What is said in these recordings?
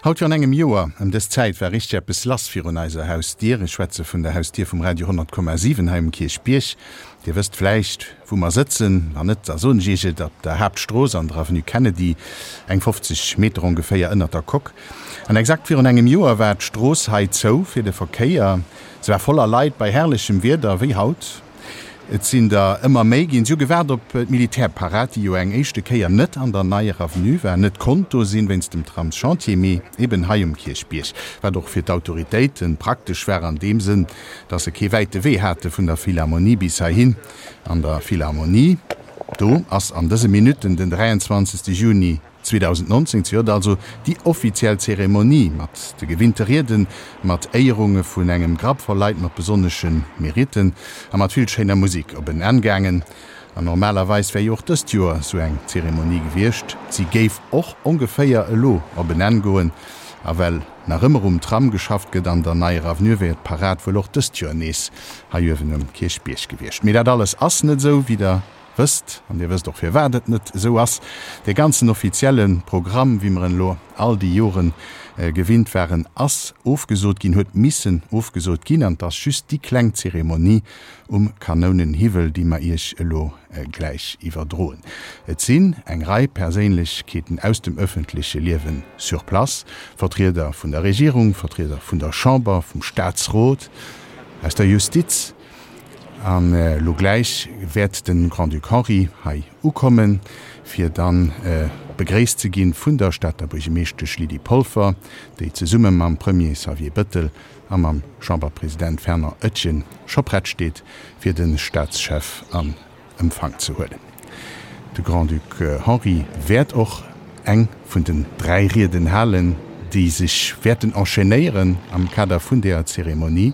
Haut virun engem Joer ëm dës Zäit war richteg eppes lass virun eiser Hausdier. Ech schwätze vun der Hausdier vum Radio 100,7 hei um Kierchbierg. Dir wësst vläicht, wou mer sëtzen. Wann net, da soen ech Iech et, Op der Haaptstrooss an der Avenue Kennedy, eng 50 Meter ongeféier ënnert der Coque. An exakt virun engem Joer war d'Strooss hei zou fir de Verkéier. Se war voller Leit bei herrlechem Wieder, wéi haut. Et sinn der ëmmer méi ginn. Si hu gewaart op d'Militärparad, déi jo eng éischte Kéier net an der Neier Avenue war, net konnt do sinn wéinst dem Tramschantier, mee eben hei um Kierchbierg, wat och fir d'Autoritéite praktesch war an deem Sënn, dass se kee wäite Wee hate vun der Philharmonie bis heihin. An der Philharmonie, do ass an dëse Minutten den 23. Juni 2019 zejoert also déi offiziell Zeremonie mat de gewinnte Rieden, mat Éierunge vun engem Grapp voll Leit mat besonnesche Meritten a mat vill schéiner Musik op en Enn gaangen. An normalerweis wär jo och dëst Joer sou eng Zeremonie gewiescht. Si géif och ongeféier elo op en Enn goen. A well nach ëmmer um Tram geschafft gëtt an der Neier Avenue, wär d'Parad wuel och dëst Joer nees hei uewen um Kierchbierg gewiescht. Mee dat alles ass net esou, wéi der wësst, an Dir wësst och firwat et net esou ass, dee ganzen offizielle Programm, wéi mer en elo all déi Jore gewinnt waren, ass ofgesot ginn, huet missen ofgesot ginn, an et ass just déi kleng Zeremonie um Kanounenhiwwel, déi mer Iech elo gläich iwwerdroen. Et sinn eng Rei Perséinlechkeeten aus dem öffentleche Liewe sur place, Vertrieder vun der Regierung, Vertrieder vun der Chamber, vum Statsrot, aus der Justiz, An elo gläich wäert de Grand-Duc Henri hei ukommen, fir dann begréisst ze ginn vun der Stater Buergemeeschtesch Lydie Polfer, déi zesumme mam Premier Xavier Bëttel a mam Chamberpresident Fernand Etgen scho prett steet, fir de Staatschef an Empfang ze huelen. De Grand-Duc Henri wäert och eng vun den 3 Rieden halen, déi sech wäerten enchaînéieren am Kader vun deeër Zeremonie.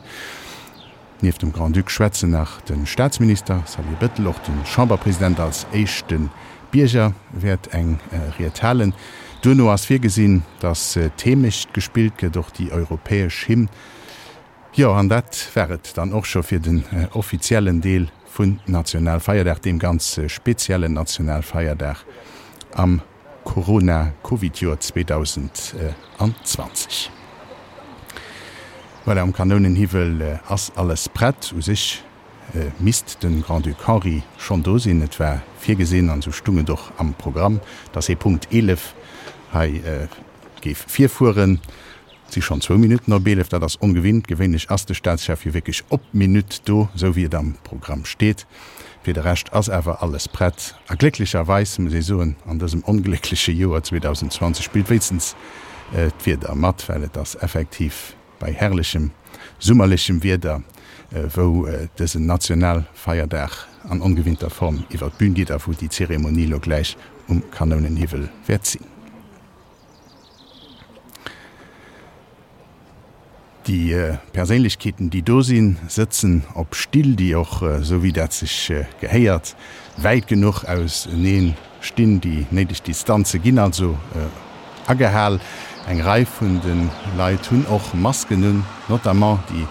Nieft dem Grand-Duc schwätzen nach de Staatsminister Xavier Bettel, och de Chamberpresident als éischte Bierger wäert eng Ried halen. Duerno ass virgesinn, datt d'Heemecht gespillt gëtt, och déi europäesch Hymn. Jo, an dat war et dann och scho fir den offiziellen Deel vun Nationalfeierdag, deem ganz speziellen Nationalfeierdag am Corona-Covid-Joer 2020. Voilà, um Kanounenhiwwel ass alles prett. U sech misst de Grand-Duc Henri schonn do sinn. Et war virgesinn, an esou stung et och am Programm, dass hie Punkt 11 hei géif virfueren. Et si schonn zwou Minutten op 11, dat ass ongewinnt. Gewéinlech ass de Staatschef jo wierklech op d'Minutt do, esou wéi et am Programm steet. Fir de Rescht ass awer alles prett. A glécklecherweis, muss ee soen, an dësem ongléckleche Joer 2020 spillt wéinstens d'Wieder mat, well et ass effektiv bei herrlechem summerlechem Wieder, wou dësen Nationalfeierdag an ongewinnter Form iwwer d'Bün geet a wou déi Zeremonie elo gläich um Kanounenhiwwel wäert sinn. Déi Perséinlechkeeten, déi do sinn, sëtzen op Still, déi och, esou wéi dat sech gehéiert, wäit genuch ausenee stinn. Déi néideg Distanze ginn also agehal. Eng Rei vun de Leit hunn och Masken un, notamment déi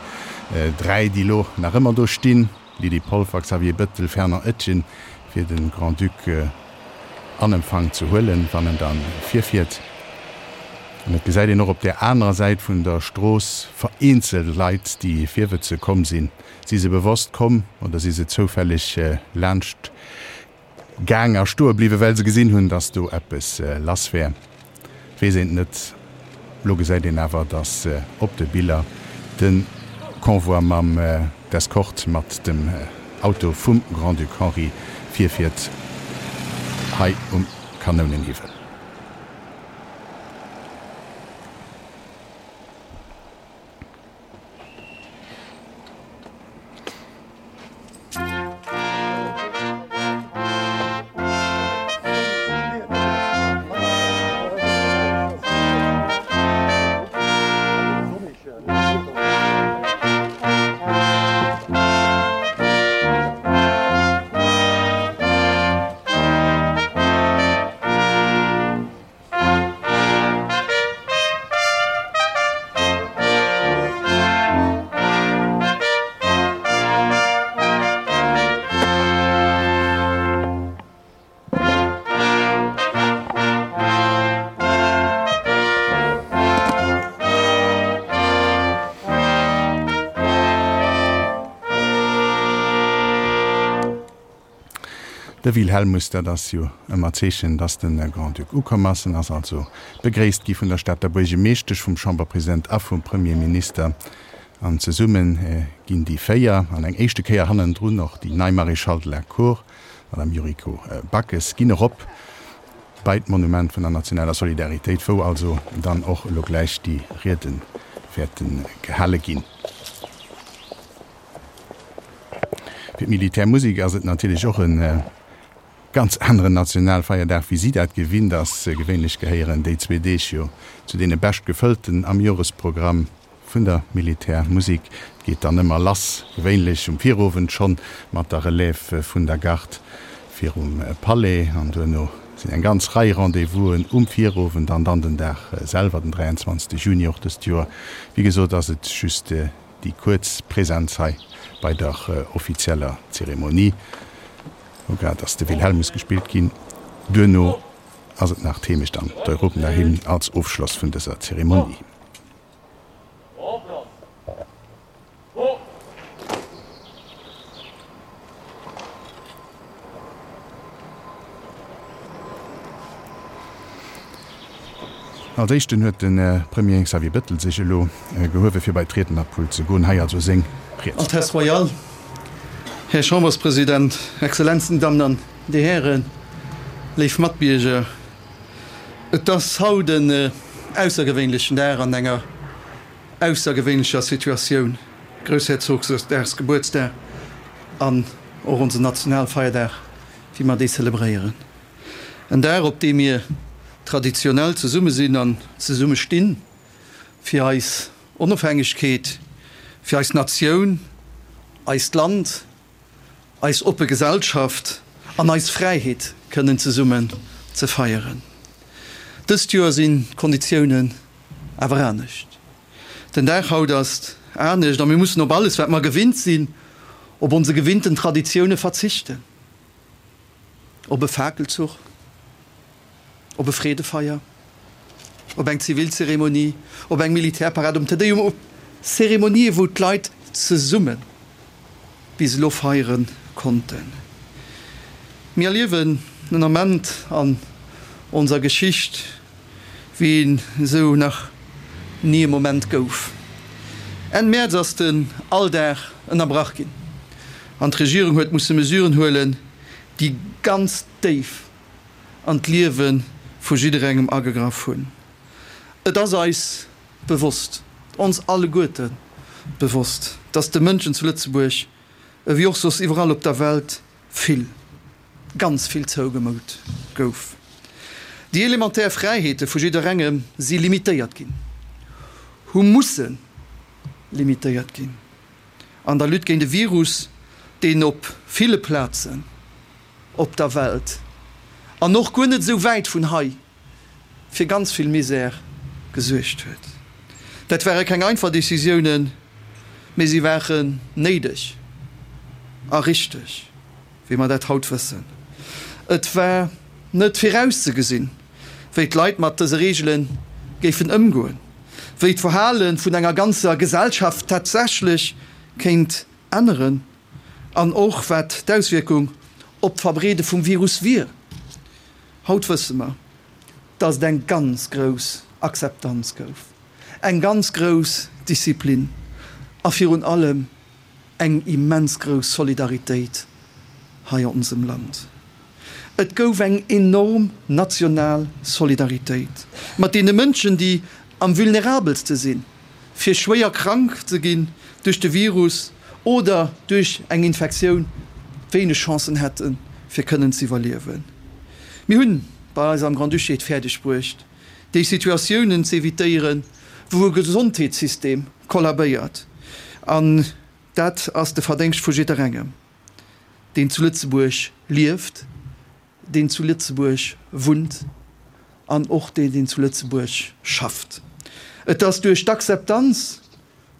3, déi elo nach ëmmer do stinn. Lydie Polfer, Xavier Bettel, Fernand Etgen, fir de Grand-Duc an Empfang ze huelen, wann en da virfiert. An et gesäit een och op där anerer Säit vun der Strooss vereenzelt Leit, déi virwëtze komm sinn. Si se bewosst komm oder si se zoufälleg laanscht Gaang a stoe bliwwen, well se gesinn hunn, dass do eppes lass wär. Weess een et net. Lo gesäit een awer, dass op de Biller de Convoi mam d'Escorte mat dem Auto vum Grand-Duc Henri virfiert hei um Kanounenhiwwel. De Wilhelmus, dat ass jo ëmmer d'Zeechen, dass de Grand-Duc ukomm ass. En ass also begréisst gi vun der Stater Buergemeeschtesch, vum Chamberpresident a vum Premierminister. An zesumme ginn déi 4, an eng éischte Kéier hannendrun och déi nei Maréchale de la Cour, Madame Yuriko Backes, ginn erop bei d'Monument vun der nationaler Solidaritéit, wou also dann och elo gläich déi Riede wäerte gehale ginn. Fir d'Militärmusek ass et natierlech och e ganz aneren Nationalfeierdag, wéi si dat gewinnt ass. Gewéinlech gehéieren déi zwee Deeg jo zu deene bescht gefëllten am Joresprogramm vun der Militärmusek. Et geet dann ëmmer lass, gewéinlech um Virowend schonn, mat der Relève vun der Garde virum Palais an duerno sinn eng ganz Rei Rendez-vousen um Virowend an dann den Dag selwer, den 23 Juni och dëst Joer. Wéi gesot ass et just Déi kuerz Präsenz hei bei der offizieller Zeremonie, wou grad ass de Wilhelmus gespillt ginn. Duerno ass et nach d'Heemecht an d'Europenahymn als Ofschloss vun dëser Zeremonie. Als éischten huet de Premier Xavier Bettel sech elo gehuewe fir bei d'Riednerpult ze goen. Hei also seng Ried. Altesse Royale, Här Chamberspresident, Exzellenzen, Dammen an Dir Hären, léif Matbierger, et ass haut en aussergewéinlechen Dag an enger aussergewéinlecher Situatioun, Groussherzogsdagsgebuertsdag an och onsen Nationalfeierdag, wéi mer dee zelebréieren. En Dag, op deem mir traditionell zesumme sinn an zesumme stinn, fir eis Onofhängegkeet, fir eis Natioun, eist Land, eis oppe Gesellschaft an eis Fräiheet kënnen zesummen ze feieren. Dëst Joer sinn d'Konditiounen awer anescht. Den Dag haut ass anescht a mir mussen op alles, wat mer gewinnt sinn, op onse gewinnten Traditioune verzichten. Op e Fakelzuch, op e Freedefeier, op eng Zivilzeremonie, op eng Militärparad, um Te Deum, op Zeremonië wou d'Leit zesumme bis elo feiere konnten. Mir erliewen en Ament an onser Geschicht, wéi een esou nach ni e Moment gouf. Enn Mäerz ass den Alldag ënnerbrach ginn an d'Regierung huet musse Mesuren huelen, déi ganz déif an d'Liewe vu jidderengem agegraff hunn. Et ass eis bewosst, ons alleguerte bewosst, dass de Mënschen zu Lëtzebuerg, ewéi och soss iwwerall op der Welt, vill, ganz vill zougemout gouf. Déi elementär Fräiheete vu jidderengem si limitéiert ginn, hu musse limitéiert ginn an der Lutte géint e Virus, deen op ville Plazen op der Welt an och guer net esou wäit vun hei fir ganz vill Misär gesuergt huet. Dat ware keng einfach Decisiounen, mee si waren néideg a richteg, wéi mer dat haut wëssen. Et war net virauszegesinn, wéi d'Leit mat dëse Reegele géifen ëmgoen, wéi d'Verhale vun enger ganzer Gesellschaft tatsächlech kéint änneren an och wat d'Auswierkung op d'Verbreede vum Virus wier. Haut wësse mer, dass et eng ganz grouss Akzeptanz gouf, eng ganz grouss Disziplin a virun allem eng immens grouss Solidaritéit hei an onsem Land. Et gouf eng enorm national Solidaritéit mat deene Mënschen, déi am vulnerabelste sinn, fir schwéier krank ze ginn duerch de Virus oder duerch eng Infektioun wéineg Chancen hätten, fir kënnen ze iwwerliewen. Mir hunn bei eis am Grand-Duché et fäerdeg bruecht, déi Situatiounen ze evitéieren, wou e Gesondheetssystem kollabéiert. An dat ass de Verdéngscht vu jidderengem, deen zu Lëtzebuerg lieft, deen zu Lëtzebuerg wunnt an och deen, deen zu Lëtzebuerg schafft. Et ass duerch d'Akzeptanz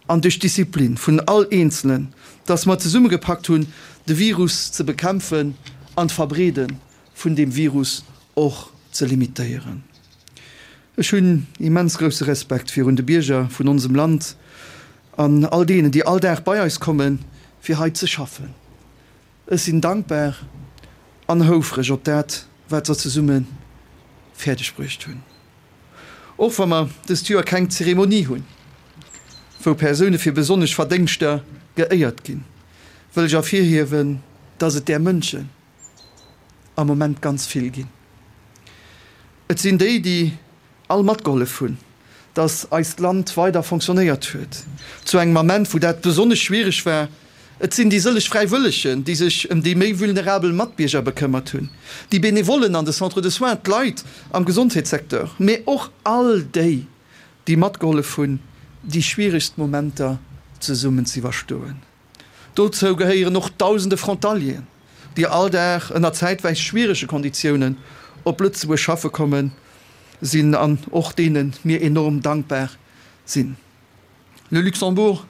an duerch d'Disziplin vun all Eenzelen, dass mer zesummegepackt hunn, de Virus ze bekämpfen an d'Verbreede vun deem Virus och ze limitéieren. Ech hunn immens grousse Respekt virun de Bierger vun onsem Land an all deenen, déi all Dag bei eis kommen, fir hei ze schaffen. Ech sinn dankbar. an houfreg op dat, wat se zesumme fäerdeg bruecht hunn. Och wa mer dëst Joer keng Zeremonie hunn, wou Persoune fir besonnesch Verdéngschter geéiert ginn, wëll ech ervirhiewen, dass et där Mënschen am Moment ganz vill ginn. Et sinn déi, déi all matgehollef hunn, dass eist Land weider fonctionnéiert huet, zu engem Ament, wou dat besonnesch schwiereg war. Et sinn déi sëlleg Fräiwëllegen, déi sech ëm déi méi vulnerabel Matbierger bekëmmert hunn, déi Benevollen an de Centres de soins, d'Leit am Gesondheetssecteur, mee och all déi, déi matgehollef hunn, déi schwieregst Momenter zesummen z'iwwerstoen. Dozou gehéieren och dausende Frontalieren, déi all Dag ënner zäitweis schwierege Konditiounen op Lëtzebuerg schaffe kommen sinn an och deene mir enorm dankbar sinn. Le Luxembourg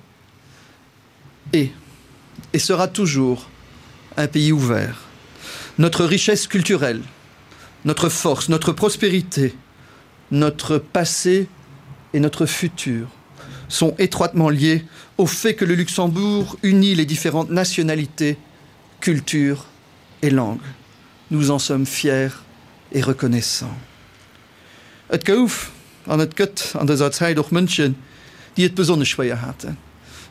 est et sera toujours un pays ouvert. Notre richesse culturelle, notre force, notre prospérité, notre passé et notre futur sont étroitement liés au fait que le Luxembourg unit les différentes nationalités, cultures et langues. Nous en sommes fiers et reconnaissants. Et gouf an et gëtt an dëser Zäit och Mënschen, déi et besonnesch schwéier haten.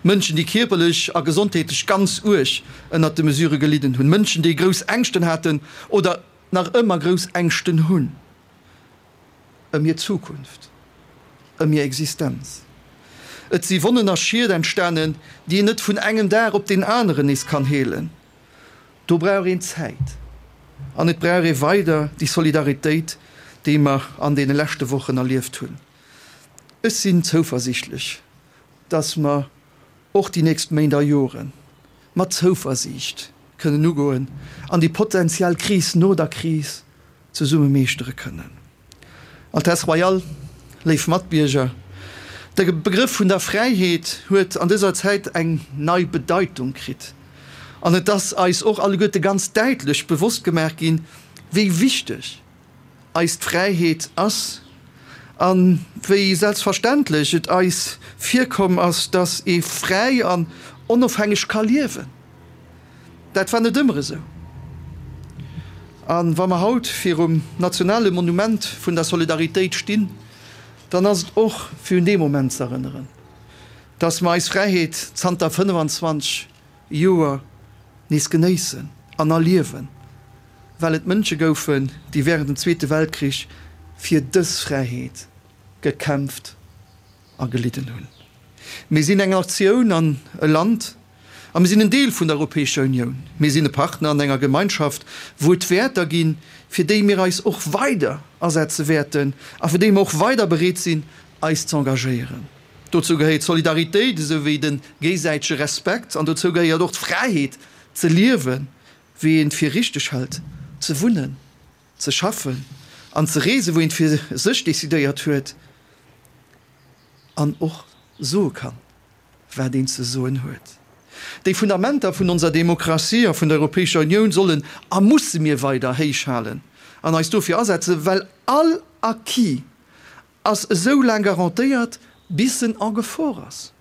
Mënschen, déi kierperlech a gesondheetlech ganz uerg ënnert de Mesure gelidden hunn. Mënschen, déi grouss Ängschten haten oder nach ëmmer grouss Ängschten hunn. Ëm hir Zukunft, ëm hir Existenz. Et si Wonnen a Schied entstanen, déi een net vun engem Dag op deen aneren nees kann heelen. Do brauch een Zäit an et brauch ee weider déi Solidaritéit, déi mer an deene leschte Wochen erlieft hunn. Ech sinn zouversiichtlech, dass mer och déi nächst Méint a Jore mat Zouversiicht kënnen ugoen an déi potenziell Kris no der Kris zesumme meeschtere kënnen. Altesse Royale, léif Matbierger, de Begrëff vun der Fräiheet huet an dëser Zäit eng nei Bedeitung kritt an et ass eis och alleguerte ganz däitlech bewosst gemaach ginn, wéi wichteg eis d'Fräiheet ass a wéi selbstverständlech et eis virkomm ass, dass ee fräi an onofhängeg ka liewen. Dat war net ëmmer esou. A wa mer haut virum nationale Monument vun der Solidaritéit stinn, dann ass et och fir un dee Moment ze erënneren, dass mer eis Fräiheet zanter 25 Joer nees genéissen an erliewen, well et Mënsche goufen, déi wärend dem Zweete Weltkrich fir dës Fräiheet gekämpft a gelidden hunn. Mir sinn eng Natioun an e Land a mir sinn en Deel vun der Europäescher Unioun. Mir sinn e Partner an enger Gemeinschaft, wou et Wäerter ginn, fir déi mir eis och weider asetze wäerten a fir déi mer och weider bereet sinn, eis z'engagéieren. Dozou gehéiert d'Solidaritéit esou wéi de géisäitege Respekt an dozou gehéiert och d'Fräiheet ze liewen, wéi een et fir richteg hält, ze wunnen, ze schaffen an ze reesen, wou een et fir sech decidéiert huet an och soe kann, wat een ze soen huet. Déi Fundamenter vun onser Demokratie a vun der Europäescher Unioun sollen a musse mir weider héich halen an eis dofir asetzen, well all Acquis ass esou laang garantéiert, bis en en Gefor ass.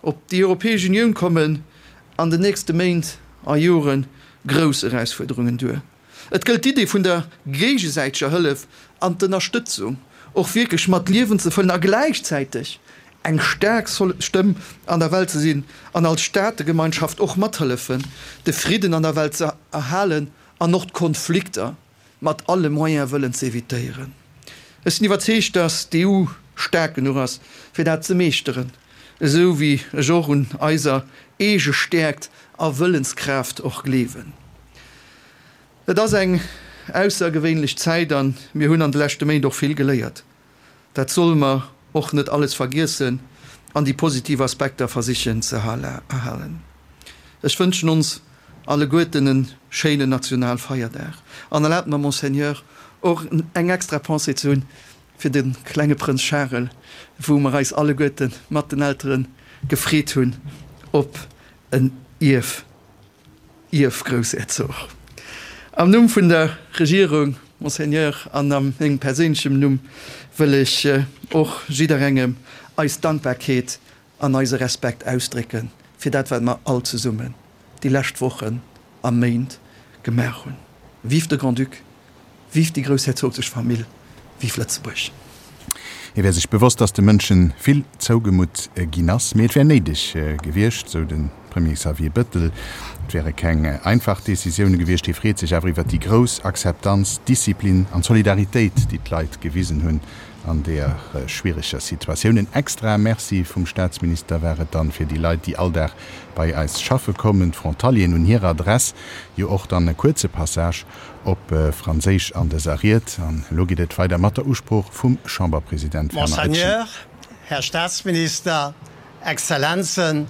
Op déi Europäesch Unioun kommen an den nächste Méint a Jore grouss Erausfuerderungen duer. Et gëllt d'Idee vun der géigesäiteger Hëllef an d'Ënnerstëtzung och wierklech mat Liewen ze fëllen a gläichzäiteg eng staark Stëmm an der Welt ze sinn an als Staategemeinschaft och mathëllefen, de Fridden an der Welt ze erhalen an och d'Konflikter mat alle Moyen wëllen ze evitéieren. Ech sinn iwwerzeegt, dass d'EU staark genuch ass, fir dat ze meeschteren, esou wéi ech och un eiser eege Stäerkt a Wëllenskraaft och gleewen. Et ass eng aussergewéinlech Zäit a mir hunn an de leschte Méint och vill geléiert. Dat solle mer och net alles vergiessen an déi positiv Aspekter versichen ze erhalen. Ech wënschen ons alleguerten en schéinen Nationalfeierdag an erlaabt mer, Monseigneur, och eng extra Pensée ze hunn fir de klenge Prënz Charel, wou mer eis alleguerte mat den Eltere gefreet hunn op en Ierf. Ierfgroussherzog. Am Numm vun der Regierung, Monseigneur, an a mengem perséinlechem Numm wëll ech och jidderengem eis Dankbarkeet an eise Respekt ausdrécke fir dat, wat mer all zesummen déi lescht Wochen a Méint gemaach hunn. Vive de Grand-Duc, vive déi groussherzoglech Famill, vive Lëtzebuerg! Hie wär sech bewosst, datt de Mënsche vill zougemutt ginn ass, mee et wär néideg gewiescht, sou de Premier Xavier Bëttel. Et wäre keng einfach Decisioune gewiescht. Hie freet sech awer iwwer déi grouss Akzeptanz, Disziplin an Solidaritéit, déi d'Leit gewisen hunn an deeër schwiereger Situatioun. En extrae Merci vum Staatsminister war et dann fir déi Leit, déi all Dag bei eis schaffe kommen, d'Frontalieren. Un hirer Adress jo och dann e kuerze Passage op Franséisch an dëser Ried. An elo geet et weider mat der Usprooch vum Chamberpresident Werner Oetschen. Monseigneur, Här Staatsminister, Exzellenzen,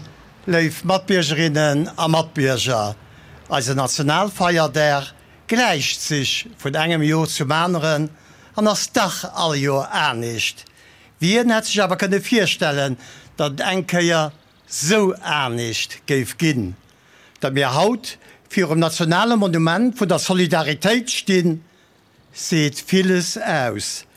léif Matbiergerinnen a Matbierger, eisen Nationalfeierdag gläicht sech vun engem Jor zum aneren an ass dach all Jor anescht. Wien hätt sech awer kënne virstellen, datt et eng Kéier sou anescht géif ginn? Datt mir haut virum nationale Monument vun der Solidaritéit stinn, seet villes aus.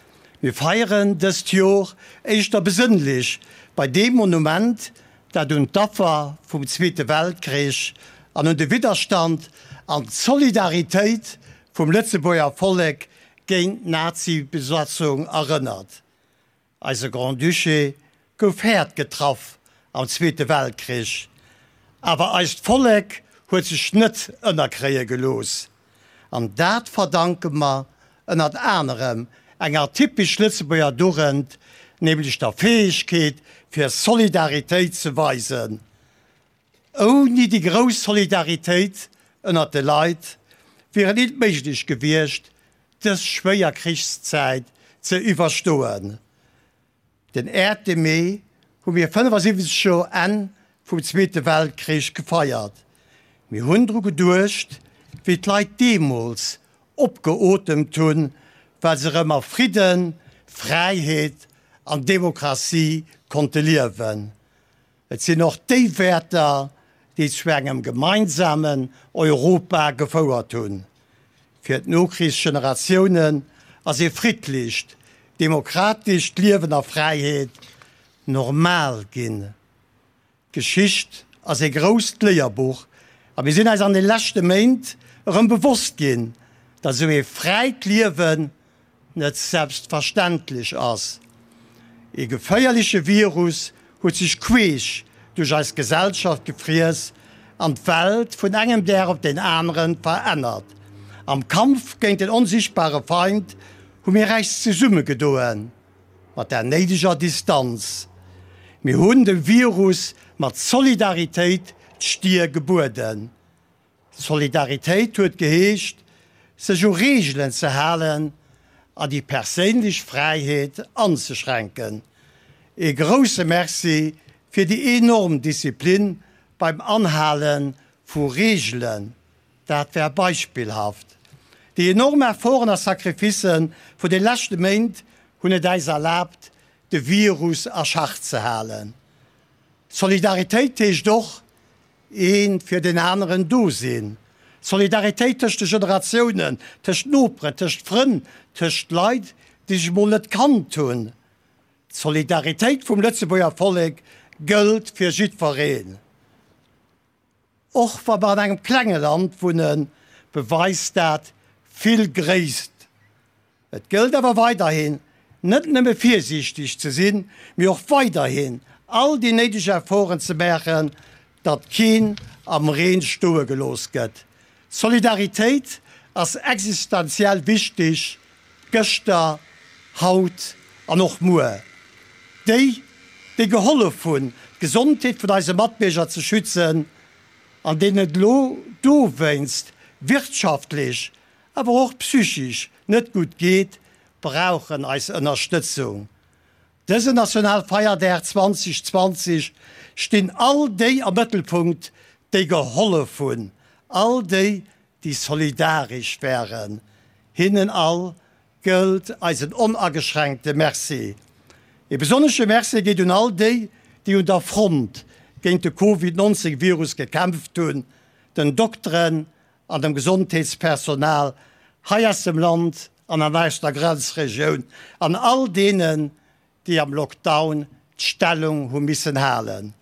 Mir feieren dëst Jor éischter besënnlech bei deem Monument, dat un d'Affer vum Zweete Weltkrich an un de Widderstand an d'Solidaritéit vum Lëtzebuerger Vollek géint d'Nazi-Besatzung erënnert. Eise Grand-Duché gouf haart getraff am Zweete Weltkrich, awer eist Vollek huet sech net ënnerkréie gelooss. An dat verdanke mer ënnert anerem enger typesch Lëtzebuerger Dugend, nämlech der Fäegkeet fir Solidaritéit ze weisen. Ouni déi grouss Solidaritéit ënnert de Leit wier et nit méiglech gewiescht, dës schwéier Krichszäit ze iwwerstoen. Den äerte Mee hu mir 75 Joer Enn vum Zweete Weltkrich gefeiert. Mir hunn dru geduecht, wéi d'Leit deemools opgeotemt hunn, well se erëm a Fridden, Fräiheet an Demokratie konnte liewen. Et sinn och déi Wäerter, déi zu engem gemeinsamen Europa gefouert hunn. Fir d'Nokrichsgeneratiounen ass ee friddlecht, demokratescht Liewen a Fräiheet normal ginn. D'Geschicht ass ee grousst Léierbuch a mir sinn eis an de leschte Méint erëm bewosst ginn, datt esou ee fräit Liewen net selbstverständlech ass. Ee geféierleche Virus huet sech queesch duerch eis Gesellschaft gefriess an d'Welt vun engem Dag op deen anere verännert. Am Kampf géint den onsichtbare Feind hu mir äis zesummegedoen, mat der néideger Distanz. Mir hunn dem Virus mat Solidaritéit d'Stier gebueden. Solidaritéit huet geheescht, sech u Reegelen ze halen a déi perséinlech Fräiheet anzeschränken. Ee grousse Merci fir déi enorm Disziplin beim Anhale vu Reegelen, dat war beispillhaft. Déi enorm Efforten a Sacrificë vun de leschte Méint hunn et äis erlaabt, de Virus a Schach ze halen. Solidaritéit heescht och, Ee fir deen aneren do sinn. Solidaritéit tëscht de Generatiounen, tëscht Noperen, tëscht Frënn, tëscht Leit, déi sech mol net kannt hunn. D'Solidaritéit vum Lëtzebuerger Vollek gëllt fir jiddwereen. Och wa mer an engem klenge Land wunnen, beweist dat vill Gréisst. Et gëllt awer weiderhin, net nëmme virsiichteg ze sinn, mee och weiderhin all déi néideg Efforten ze maachen, datt keen am Reen stoe gelooss gëtt. Solidaritéit ass existenziell wichteg, gëschter, haut an och muer. Déi, déi gehollef hunn, d'Gesondheet vun eise Matbierger ze schützen, an deenen et elo dowéinst wirtschaftlech awer och psychisch net gutt geet, brauchen eis Ënnerstëtzung. Dësen Nationalfeierdag 2020 stinn all déi am Mëttelpunkt, déi gehollef hunn, all déi, déi solidaresch waren. Hinnen all gëllt eisen onageschränkte Merci. E besonnesche Merci geet un all déi, déi un der Front géint de Covid 19 Virus gekämpft hunn, den Dokteren, an dem Gesondheetspersonal hei aus dem Land an an aus der Grenzregioun an all deenen, déi am Lockdown d'Stellung hu missen halen.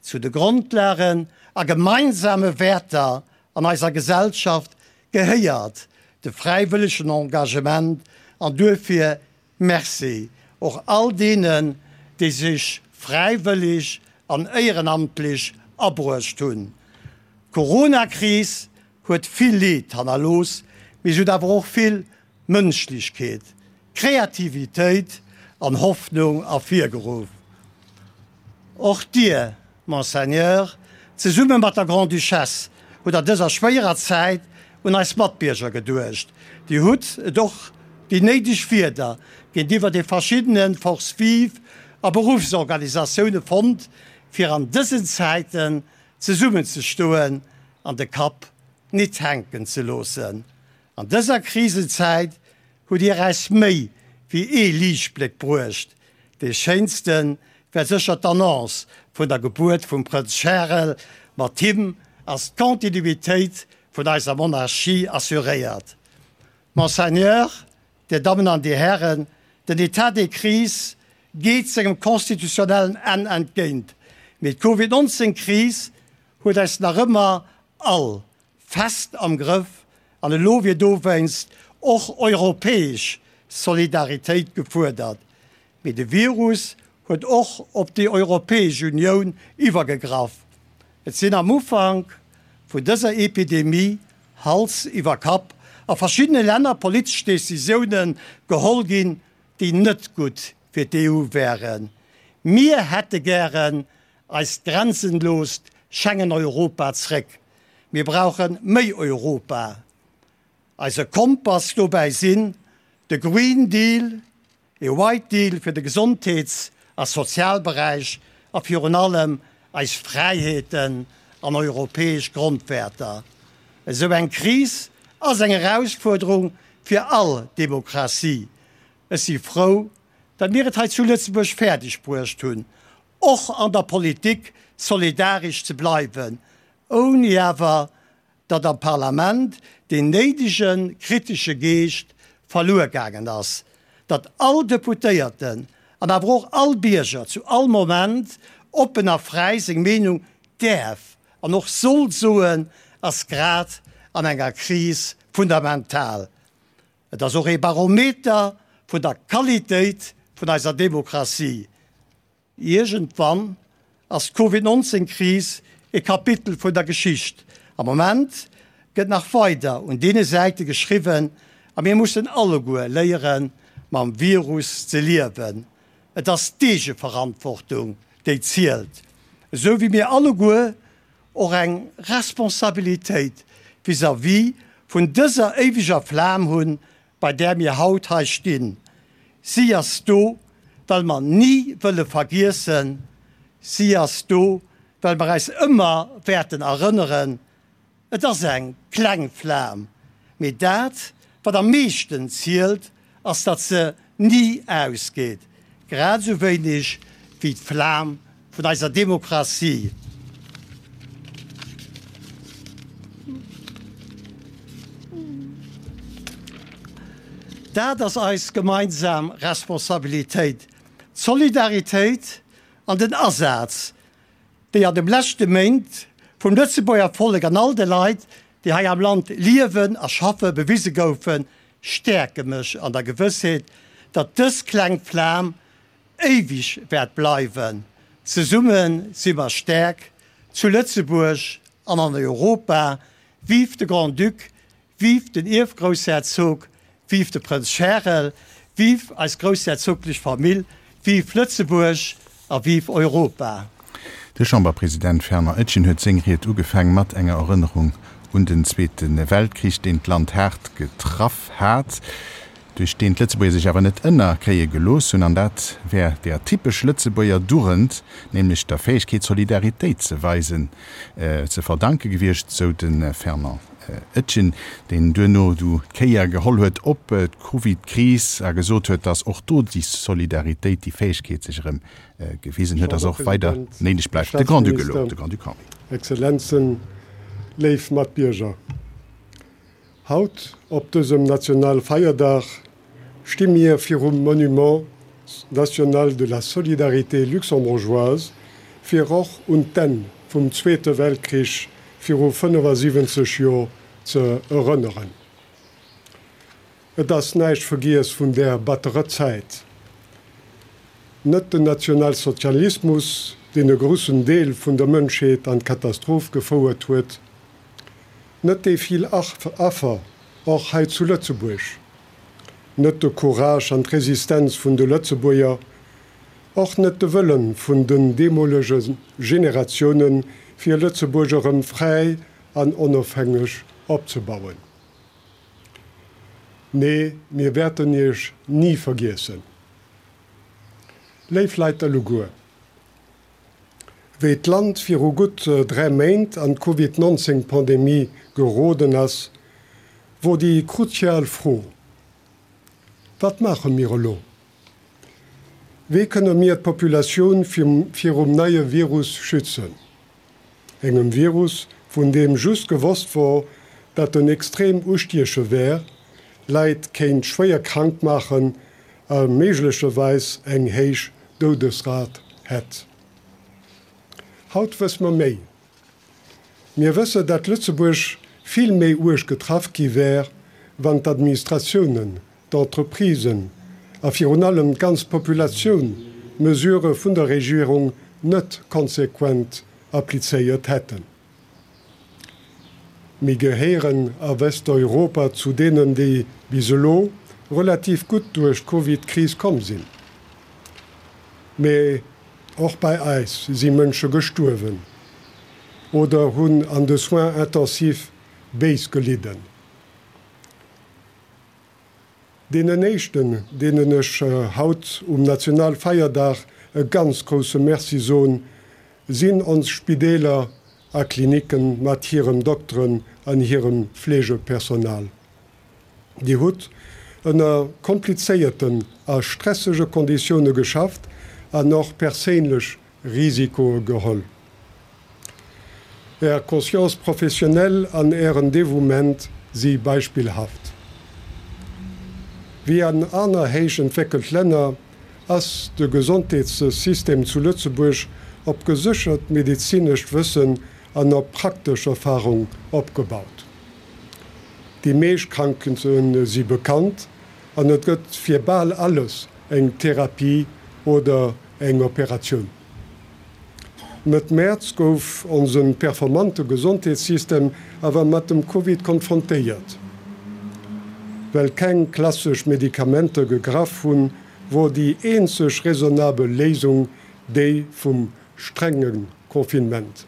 Zu de Grondlagen a gemeinsame Wäerter an eiser Gesellschaft gehéiert. de fräiwëllegen Engagement an duerfir Merci och all deenen, déi sech fräiwëllig an éierenamtlich abruecht hunn. D'Corona-Kris huet vill Leed hannerlooss, mee se huet awer och vill Mënschlechkeet, Kreativitéit an Hoffnung ervirgeruff. Och Dir, Monseigneur, zesumme mat der Grande-Duchesse hutt an dëser schwéierer Zäit un eis Matbierger geduecht. Dir hutt et och déi néideg Wierder géintiwwer de verschiddene Forces vives a Beruffsorganisatioune fonnt, fir an dësen Zäiten zesummenzestoen an de Kapp nit hänken ze loossen. An dëser Krisenzäit hutt Dir äis méi wéi ee Liichtbléck bruecht. Dee schéinste war sécher d'Annonce vun der Gebuert vum Prënz Charel. Mat him ass d'Kontinuitéit vun eiser Monarchie assuréiert. Monseigneur, Dir Dammen an Dir Hären, den État de crise geet sengem constitutionnellen Enn entgéint, mee d'Covid 19 Kris huet eis nach ëmmer all fest am Grëff an elo wier dowéinst och europäesch Solidaritéit gefuerdert. Mee de Virus huet och op déi Europäesch Unioun iwwergegraff. Et sinn am Ufank vun dëser Epidemie Hals iwwer Kapp a verschiddene Länner politesch Decisioune geholl ginn, déi net gutt fir d'EU wären. Mir hätte gären eist grenzenloost Schengen-Europa zréck. Mir brauche méi Europa. Eise Kompass dobäi sinn de Green Deal, e White Deal fir de Gesondheets a Sozialberäich a virun allem eis Fräiheeten an europäesch Grondwäerter. Esou eng Kris ass eng Erausfuerderung fir all Demokratie. Ech si frou, datt mir et hei zu Lëtzebuerg fäerdeg bruecht hunn, och an der Politik solidaresch ze bleiwen, ouni awer datt am Parlament deen néidege kritesche Geescht verluer gaangen ass, datt all Deputéierten an awer och all Bierger zu all Moment oppen a fräi seng Meenung däerf an och soll soen, ass grad an enger Kris fundamental. Et ass och ee Barometer vun der Qualitéit vun eiser Demokratie. Iergendwann ass d'Covid 19 Kris e Kapitel vun der Geschicht. Am Moment gëtt nach weider un deene Säite geschriwwen a mir mussen alleguer léiere mam Virus ze liewen. Et ass d'Eegeverantwortung déi zielt, esou wéi mir alleguer och eng Responsabilitéit vis-à-vis vun dëser éiweger Flam hunn, bei där mir haut hei stinn. Si ass do, well mer ni wëlle vergiessen. Si ass do, well mer eis ëmmer wäerten erënneren. Et ass eng kleng Flam, mee dat, wat am meeschten zielt, ass, datt se ni ausgeet, grad esou wéineg wéi d'Flam vun eiser Demokratie. Dat ass eis gemeinsam Responsabilitéit, d'Solidaritéit an den Asaz, déi an de leschte Méint vum Lëtzebuerger Vollek an all de Leit, déi hei am Land liewen a schaffe bewise goufen, stäerke mech an der Gewëssheet, datt dës kleng Flam éiweg wäert bleiwen. Zesumme si mer stäerk, zu Lëtzebuerg an an Europa. Vive de Grand-Duc, vive den Ierfgroussherzog, vive de Prënz Charel, vive eis groussherzoglech Famill, vive Lëtzebuerg a vive Europa! De Chamberpresident Fernand Etgen huet seng Ried ugefaang mat enger Erënnerung un den Zweete Weltkrich, deen d'Land haart getraff hat. duerch deen d'Lëtzebuerger sech awer net ënnerkréie gelooss hunn, an dat wär der typesch Lëtzebuerger Dugend, nämlech der Fäegkeet Solidaritéit ze weisen, ze verdanke gewiescht, sou de Fernand Etgen, deen duerno du d'Kéier geholl huet op d'Covid-Kris a gesot huet, datt och do déi Solidaritéit, déi Fäegkeet sech erëm gewisen huet a se och weider Chamberpresident, néideg Här bleift. De Grand-Duc elo, Staatsminister, de Grand-Duc Henri. Exzellenzen, léif Matbierger. Haut, op dësem Nationalfeierdag, sti mir virum Monument national de la solidarité luxembourgeoise, fir och un d'Enn vum Zweete Weltkrich viru 75 Jor ze erënneren. Et ass näischt vergiess vun där batterer Zäit. Net den Nationalsozialismus, deen e groussen Deel vun der Mënschheet an d'Katastroph gefouert huet, net déi vill Affer, och hei zu Lëtzebuerg, net de Courage an d'Resistenz vun de Lëtzebuerger, och net de Wëllen vun den deemolege Generatiounen, fir Lëtzebuerg erëm fräi an onofhängeg opzebauen. Nee, mir wäerten Iech ni vergiessen. Léif Leit alleguer, wéi d'Land viru gutt 3 Méint an d'Covid 19 Pandemie geroden ass, wor déi kruzial Fro, Wat maache mir elo? Wéi kënne mir d'Populatioun virum neie Virus schützen? Engem Virus, vun deem just gewosst wor, dat en extrem ustieche wär, Leit kéint schwéier krank maachen a méiglecherweis eng héich Doudesrat hätt. Haut wësse mer méi. Mir wësse, dat Lëtzebuerg vill méi uerg getraff gi wär, wann d'Administratiounen, d'Entreprisen a virun allem d'ganz Populatioun d'Mesurë vun der Regierung net konsequent applizéiert hätten. Mir gehéieren a Westeuropa zu deenen, déi bis elo relativ gutt duerch d'Covid-Kris komm sinn. Mee och bei eis si Mënsche gestuerwen oder hunn an de Soins intensifs béis gelidden. Deenen éischten, deenen ech haut um Nationalfeierdag e ganz grousse Merci soen, sinn ons Spideeler a Klinicken mat hirem Dokteren an hirem Fleegepersonal. Dir hutt ënner komplizéierten a stressege Konditioune geschafft an och perséinlech Risikoe geholl. Är Conscience professionnelle an Ären Devouement si beispillhaft. Wéi an aner héich entwéckelt Länner ass de Gesondheetssystem zu Lëtzebuerg op geséchert medezinescht Wëssen an op praktesch Erfarung opgebaut. Déi meescht Krankheete si bekannt an et gëtt fir bal alles eng Therapie oder eng Operatioun. Mëtt Mäerz gouf onse performante Gesondheetssystem awer mat dem Covid konfrontéiert. Well keng klassesch Medikamenter gegraff hunn, wor déi eenzeg raisonnabel Léisung déi vum strenge Confinement.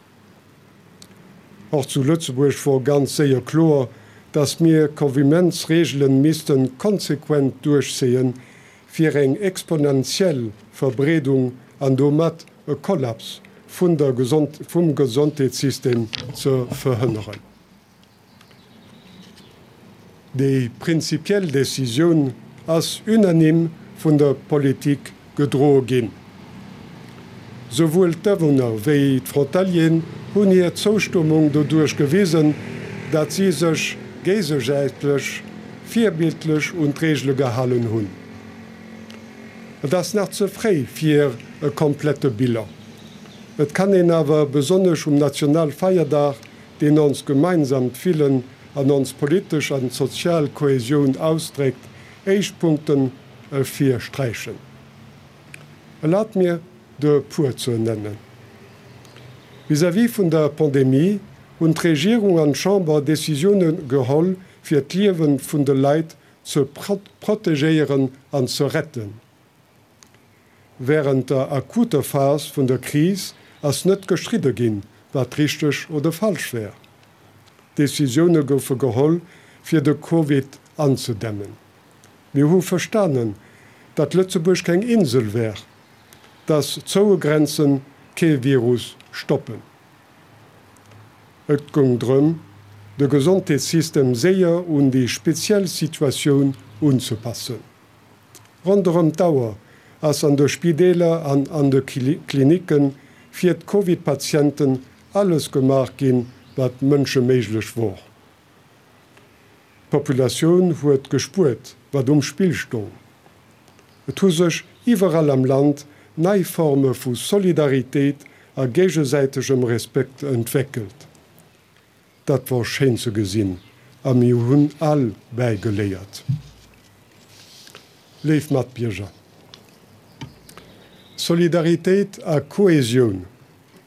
Och zu Lëtzebuerg wor ganz séier kloer, datt mir Confinementsreegelen missten konsequent duerchzéien, fir eng exponentiell Verbreedung an domat e Kollaps vun der vum Gesondheetssystem ze verhënneren. Déi prinzipiell Decisioun ass unanime vun der Politik gedroe ginn. Souwuel d'Awunner wéi d'Frontalieren hunn hir Zoustëmmung doduerch gewisen, dat si sech géigesäitlech virbildlech un d'Reegele gehalen hunn. Et ass nach ze fréi fir e komplette Bilan. Et kann een awer besonnesch um Nationalfeierdag, deen ons gemeinsamt Fillen an ons politesch an sozial Kohäsioun ausdréckt, éischt Punkten ervirsträichen. Erlaabt mir, der e puer ze nennen. Vis-à-vis vun der Pandemie hunn d'Regierung an d'Chamber Decisioune geholl, fir d'Liewe vun de Leit ze protegéieren an ze retten. Wärend der akuter Phas vun der Kris ass net gestridde ginn, wat richteg oder falsch wär. Decisioune goufe geholl, fir de Covid anzedämmen. Mir hu verstanen, datt Lëtzebuerg keng Insel wär, datt zoue Grenze kee Virus stoppen. Et goung drëm, de Gesondheetssystem séier un déi speziell Situatioun unzepassen. Ronderëm d'Auer ass an de Spideeler an an de Klinicke fir d'Covid-Patienten alles gemaach ginn, wat mënscheméiglech wor. D'Populatioun huet gespuert, wat um Spill stong. Et hu sech iwwerall am Land nei Forme vu Solidaritéit a géigesäitegem Respekt entwéckelt. Dat wor schéin ze gesinn a mir hunn all bäigeléiert. Léif Matbierger, Solidaritéit a Kohesioun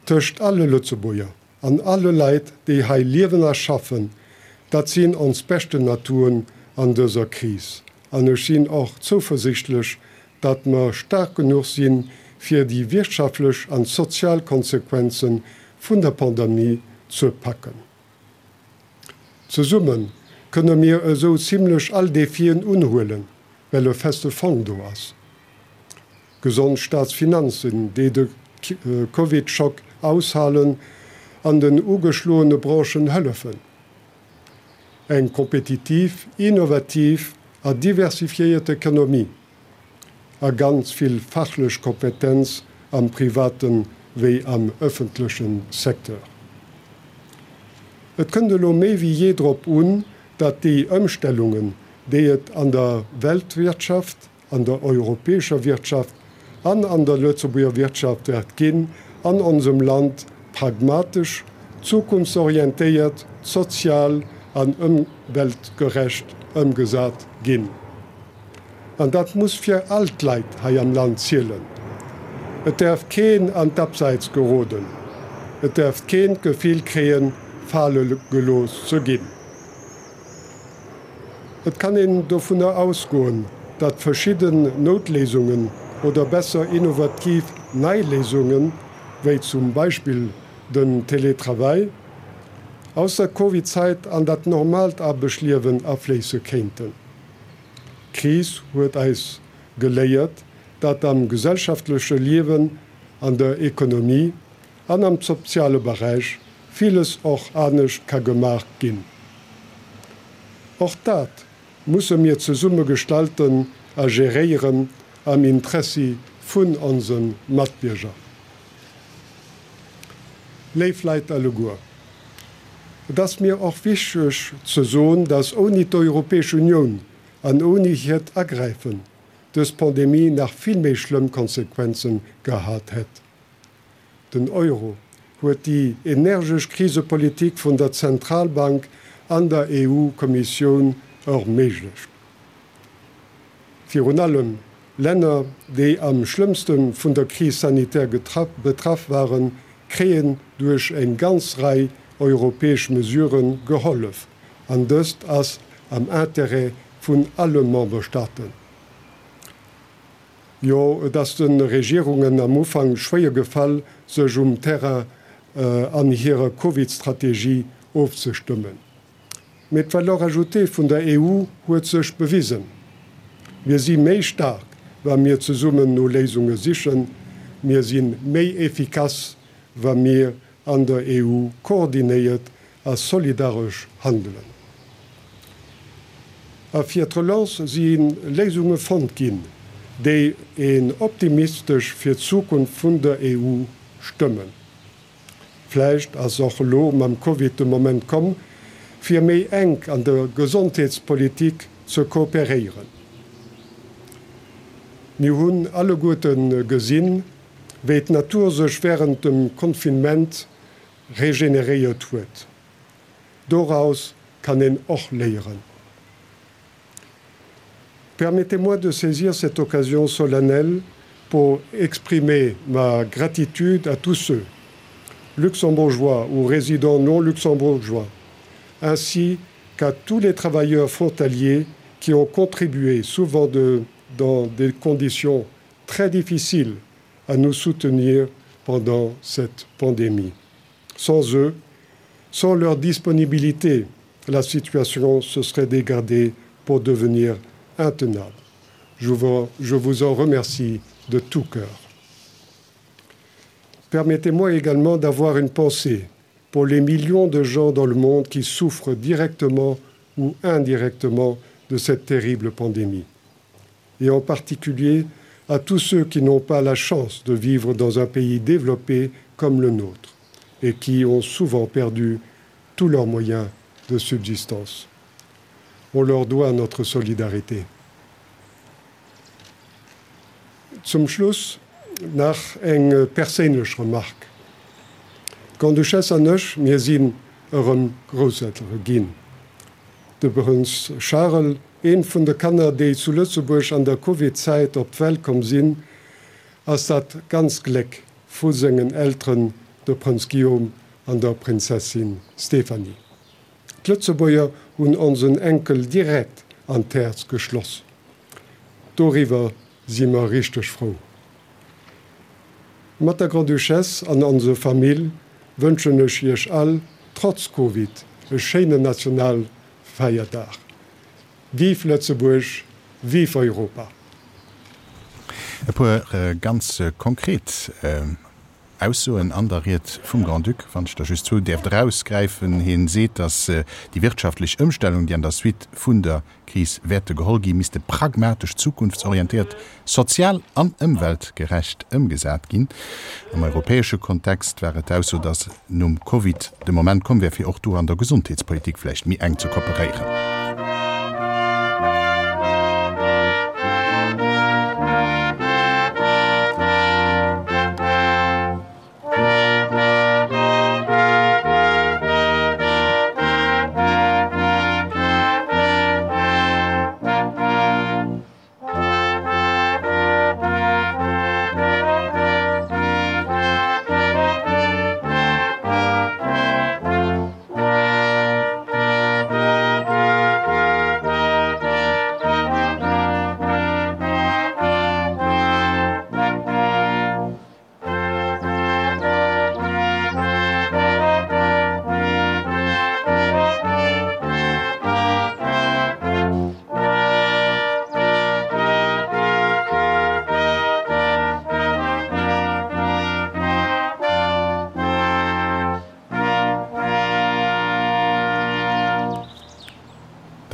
tëscht alle Lëtzebuerger an alle Leit, déi hei liewen a schaffen, dat sinn ons beschten Atouen an dëser Kris. An ech sinn och zouversichtlech, datt mer staark genuch sinn, fir déi wirtschaftlech an sozial Konsequenze vun der Pandemie ze packen. Zesumme kënne mir esou zimlech all Defien unhuelen, well e feste Fong do ass. Gesond Staatsfinanzen, déi de Covid-Schock aushalen an den ugeschloene Branchen hëllefen. Eng kompetitiv, innovativ a diversifiéiert Ekonomie a ganz vill fachlech Kompetenz am private wéi am ëffentleche Secteur. Et kënnt elo méi wéi jee drop un, datt déi Ëmstellungen, déi et an der Weltwirtschaft, an der europäescher Wirtschaft an an der Lëtzebuerger Wirtschaft wäert ginn, an onsem Land pragmatesch, zukunftsorientéiert, sozial an ëmweltgerecht ëmgesat ginn. An dat muss fir all d'Leit hei am Land zielen. Et däerf keen an d'Abseits geroden. Et däerf keen d'Gefill kréien, fale gelooss ze ginn. Et kann een dovunner ausgoen, datt verschidden Noutléisungen oder besser innovativ nei Léisungen, wéi zum Beispill den Télétravail, aus der Covid-Zäit an dat normaalt Aarbechtliewen afléisse kéinten. D'Kris huet eis geléiert, datt am gesellschaftleche Liewen, an der Ekonomie an am soziale Beräich villes och anescht ka gemaach ginn. Och dat musse mir zesumme gestalten a geréieren am Interessi vun onse Matbierger. Léif Leit alleguer, et ass mir och wichteg ze soen, dass ouni d'Europäesch Unioun an ouni hiert Agräifen dës Pandemie nach vill méi schlëmm Konsequenze gehat hätt. Den Euro huet déi energesch Krisepolitik vun der Zentralbank an der EU-Kommissioun erméiglecht. Virun allem Länner, déi am schlëmmste vun der Crise sanitaire betraff waren, kréien duerch eng ganz Rei europäesch Mesurë gehollef, an dëst ass am Intérêt vun alle Memberstaaten. Jo, et ass de Regierungen am Ufank schwéier gefall, sech um Terrain an hirer Covid-Strategie ofzestëmmen. Mee d'Valeur ajoutée vun der EU huet sech bewisen. Mir si méi staark, wa mir zesummen no Léisunge sichen. Mir si méi efficace, wa mir an der EU koordinéiert a solidaresch handelen. A fir d'Relance si Léisunge fonnt ginn, déi een optimistesch fir d'Zukunft vun der EU stëmmen. Vläicht ass och elo mam Covid de Moment komm, fir méi enk an der Gesondheetspolitik ze kooperéieren. Mir hunn alleguerte gesinn, wéi d'Natur sech wärend dem Confinement regeneréiert huet. Doraus kann een och léieren. Permettez-moi de saisir cette occasion solennelle pour exprimer ma gratitude à tous ceux, luxembourgeois ou résidents non luxembourgeois, ainsi qu'à tous les travailleurs frontaliers qui ont contribué souvent de, dans des conditions très difficiles à nous soutenir pendant cette pandémie. Sans eux, sans leur disponibilité, la situation se serait dégradée pour devenir intenable. Je vous, je vous en remercie de tout cœur. Permettez-moi également d'avoir une pensée pour les millions de gens dans le monde qui souffrent directement ou indirectement de cette terrible pandémie. Et en particulier à tous ceux qui n'ont pas la chance de vivre dans un pays développé comme le nôtre et qui ont souvent perdu tous leurs moyens de subsistance. On leur doit notre solidarité. Zum Schluss nach eng perséinlech Remarque. D'Grande-Duchesse an ech, mir sinn erëm Grousseltere ginn. De Prënz Charel. Eent vun de Kanner, déi zu Lëtzebuerg an der Covid-Zäit op d'Welt komm sinn, ass dat ganz Gléck vu sengen Elteren, de Prënz Guillaume an der Prinzessin Stéphanie. D'Lëtzebuerger hunn onsen Enkel direkt an d'Häerz geschloss. Doriwwer si mer richteg frou. Mat der Grande-Duchesse an onse Famill wënschen ech Iech all, trotz Covid, e schéinen Nationalfeierdag. Vive Lëtzebuerg, vive Europa! E puer ganz konkret Aussoen an der Ried vum Grand-Duc, wann ech der just zwou däerft erausgräifen. Hien seet, datt déi wirtschaftlech Ëmstellung, déi an der Suite vun der Kris wäerte geholl ginn, misste pragmatesch, zukunftsorientéiert, sozial an ëmweltgerecht ëmgesat ginn. Am europäesche Kontext war et d'Ausso, datt nom Covid de Moment komm wär, fir och do an der Gesondheetspolitik vläicht méi enk ze kooperéieren.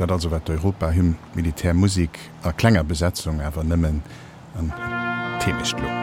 Dat also war d'Europahymn, Militärmusik a klenger Besetzung, awer nëmmen an d'Heemecht lo.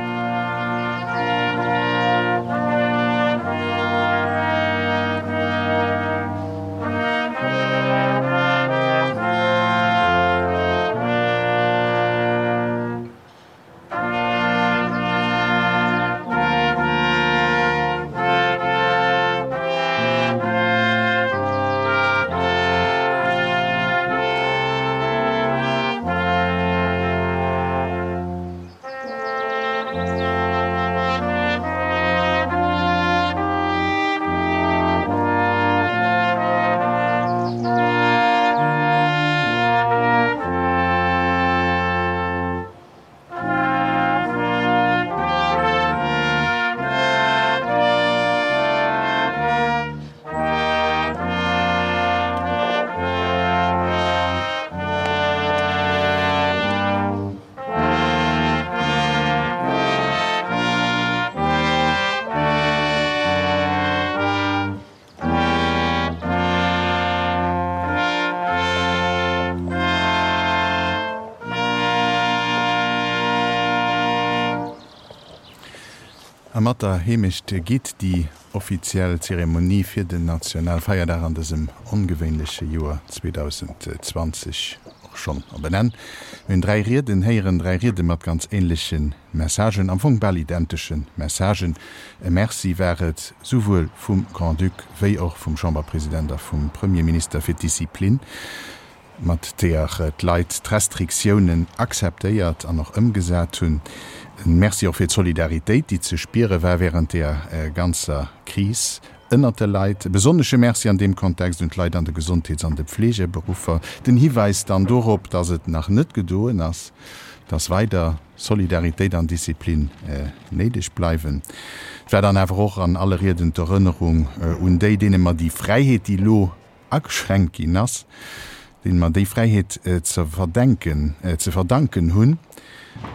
A mat der Heemecht geet déi offiziell Zeremonie fir den Nationalfeierdag an dësem ongewéinleche Joer 2020 och schonn op en Enn. Mir hunn 3 Rieden héieren, 3 Riede mat ganz änleche Messagen, am Fong bal identesche Messagen. E Merci war et souwuel vum Grand-Duc wéi och vum Chamberpresident a vum Premierminister fir d'Disziplin, mat deeër d'Leit d'Restriktiounen akzeptéiert an och ëmgesat hunn. E Merci och fir d'Solidaritéit, déi ze spiere war wärend deeër ganzer Kris ënnert de Leit. E besonnesche Merci an deem Kontext un d'Leit an de Gesondheets an de Pflegeberuffer. Den Hiwäis dann dorop, dass et nach net gedoen ass, dass weider Solidaritéit an Disziplin néideg bleiwen. Et war dann awer och an alle Rieden d'Erënnerung un déi, deene mer déi Fräiheet, déi elo ageschränkt ginn ass, deene mer déi Fräiheet ze verdenken, ze verdanken hunn.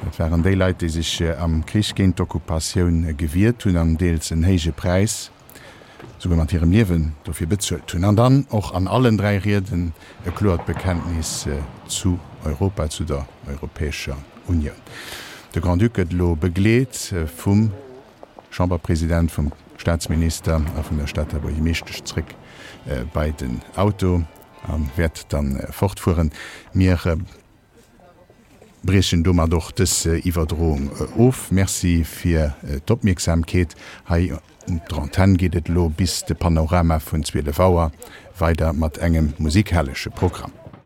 Dat waren déi Leit, déi sech am Krich géint d'Occupatioun gewiert hunn an deels en héije Präis, souguer mat hirem Liewen, dofir bezuelt hunn. An dann och an allen 3 Rieden e kloert Bekenntnis zu Europa, zu der Europäescher Unioun. De Grand-Duc gëtt elo begleet vum Chamberpresident, vum Staatsminister a vun der Stater Buergermeeschtesch zréck bei den Auto a wäert dann fortfueren. Mir briechen domat och dës Iwwerdroung of. Merci fir d'Opmierksamkeet. Hei un der Antenn geet et elo bis de Panorama vun 12 Auer weider mat engem musikalesche Programm.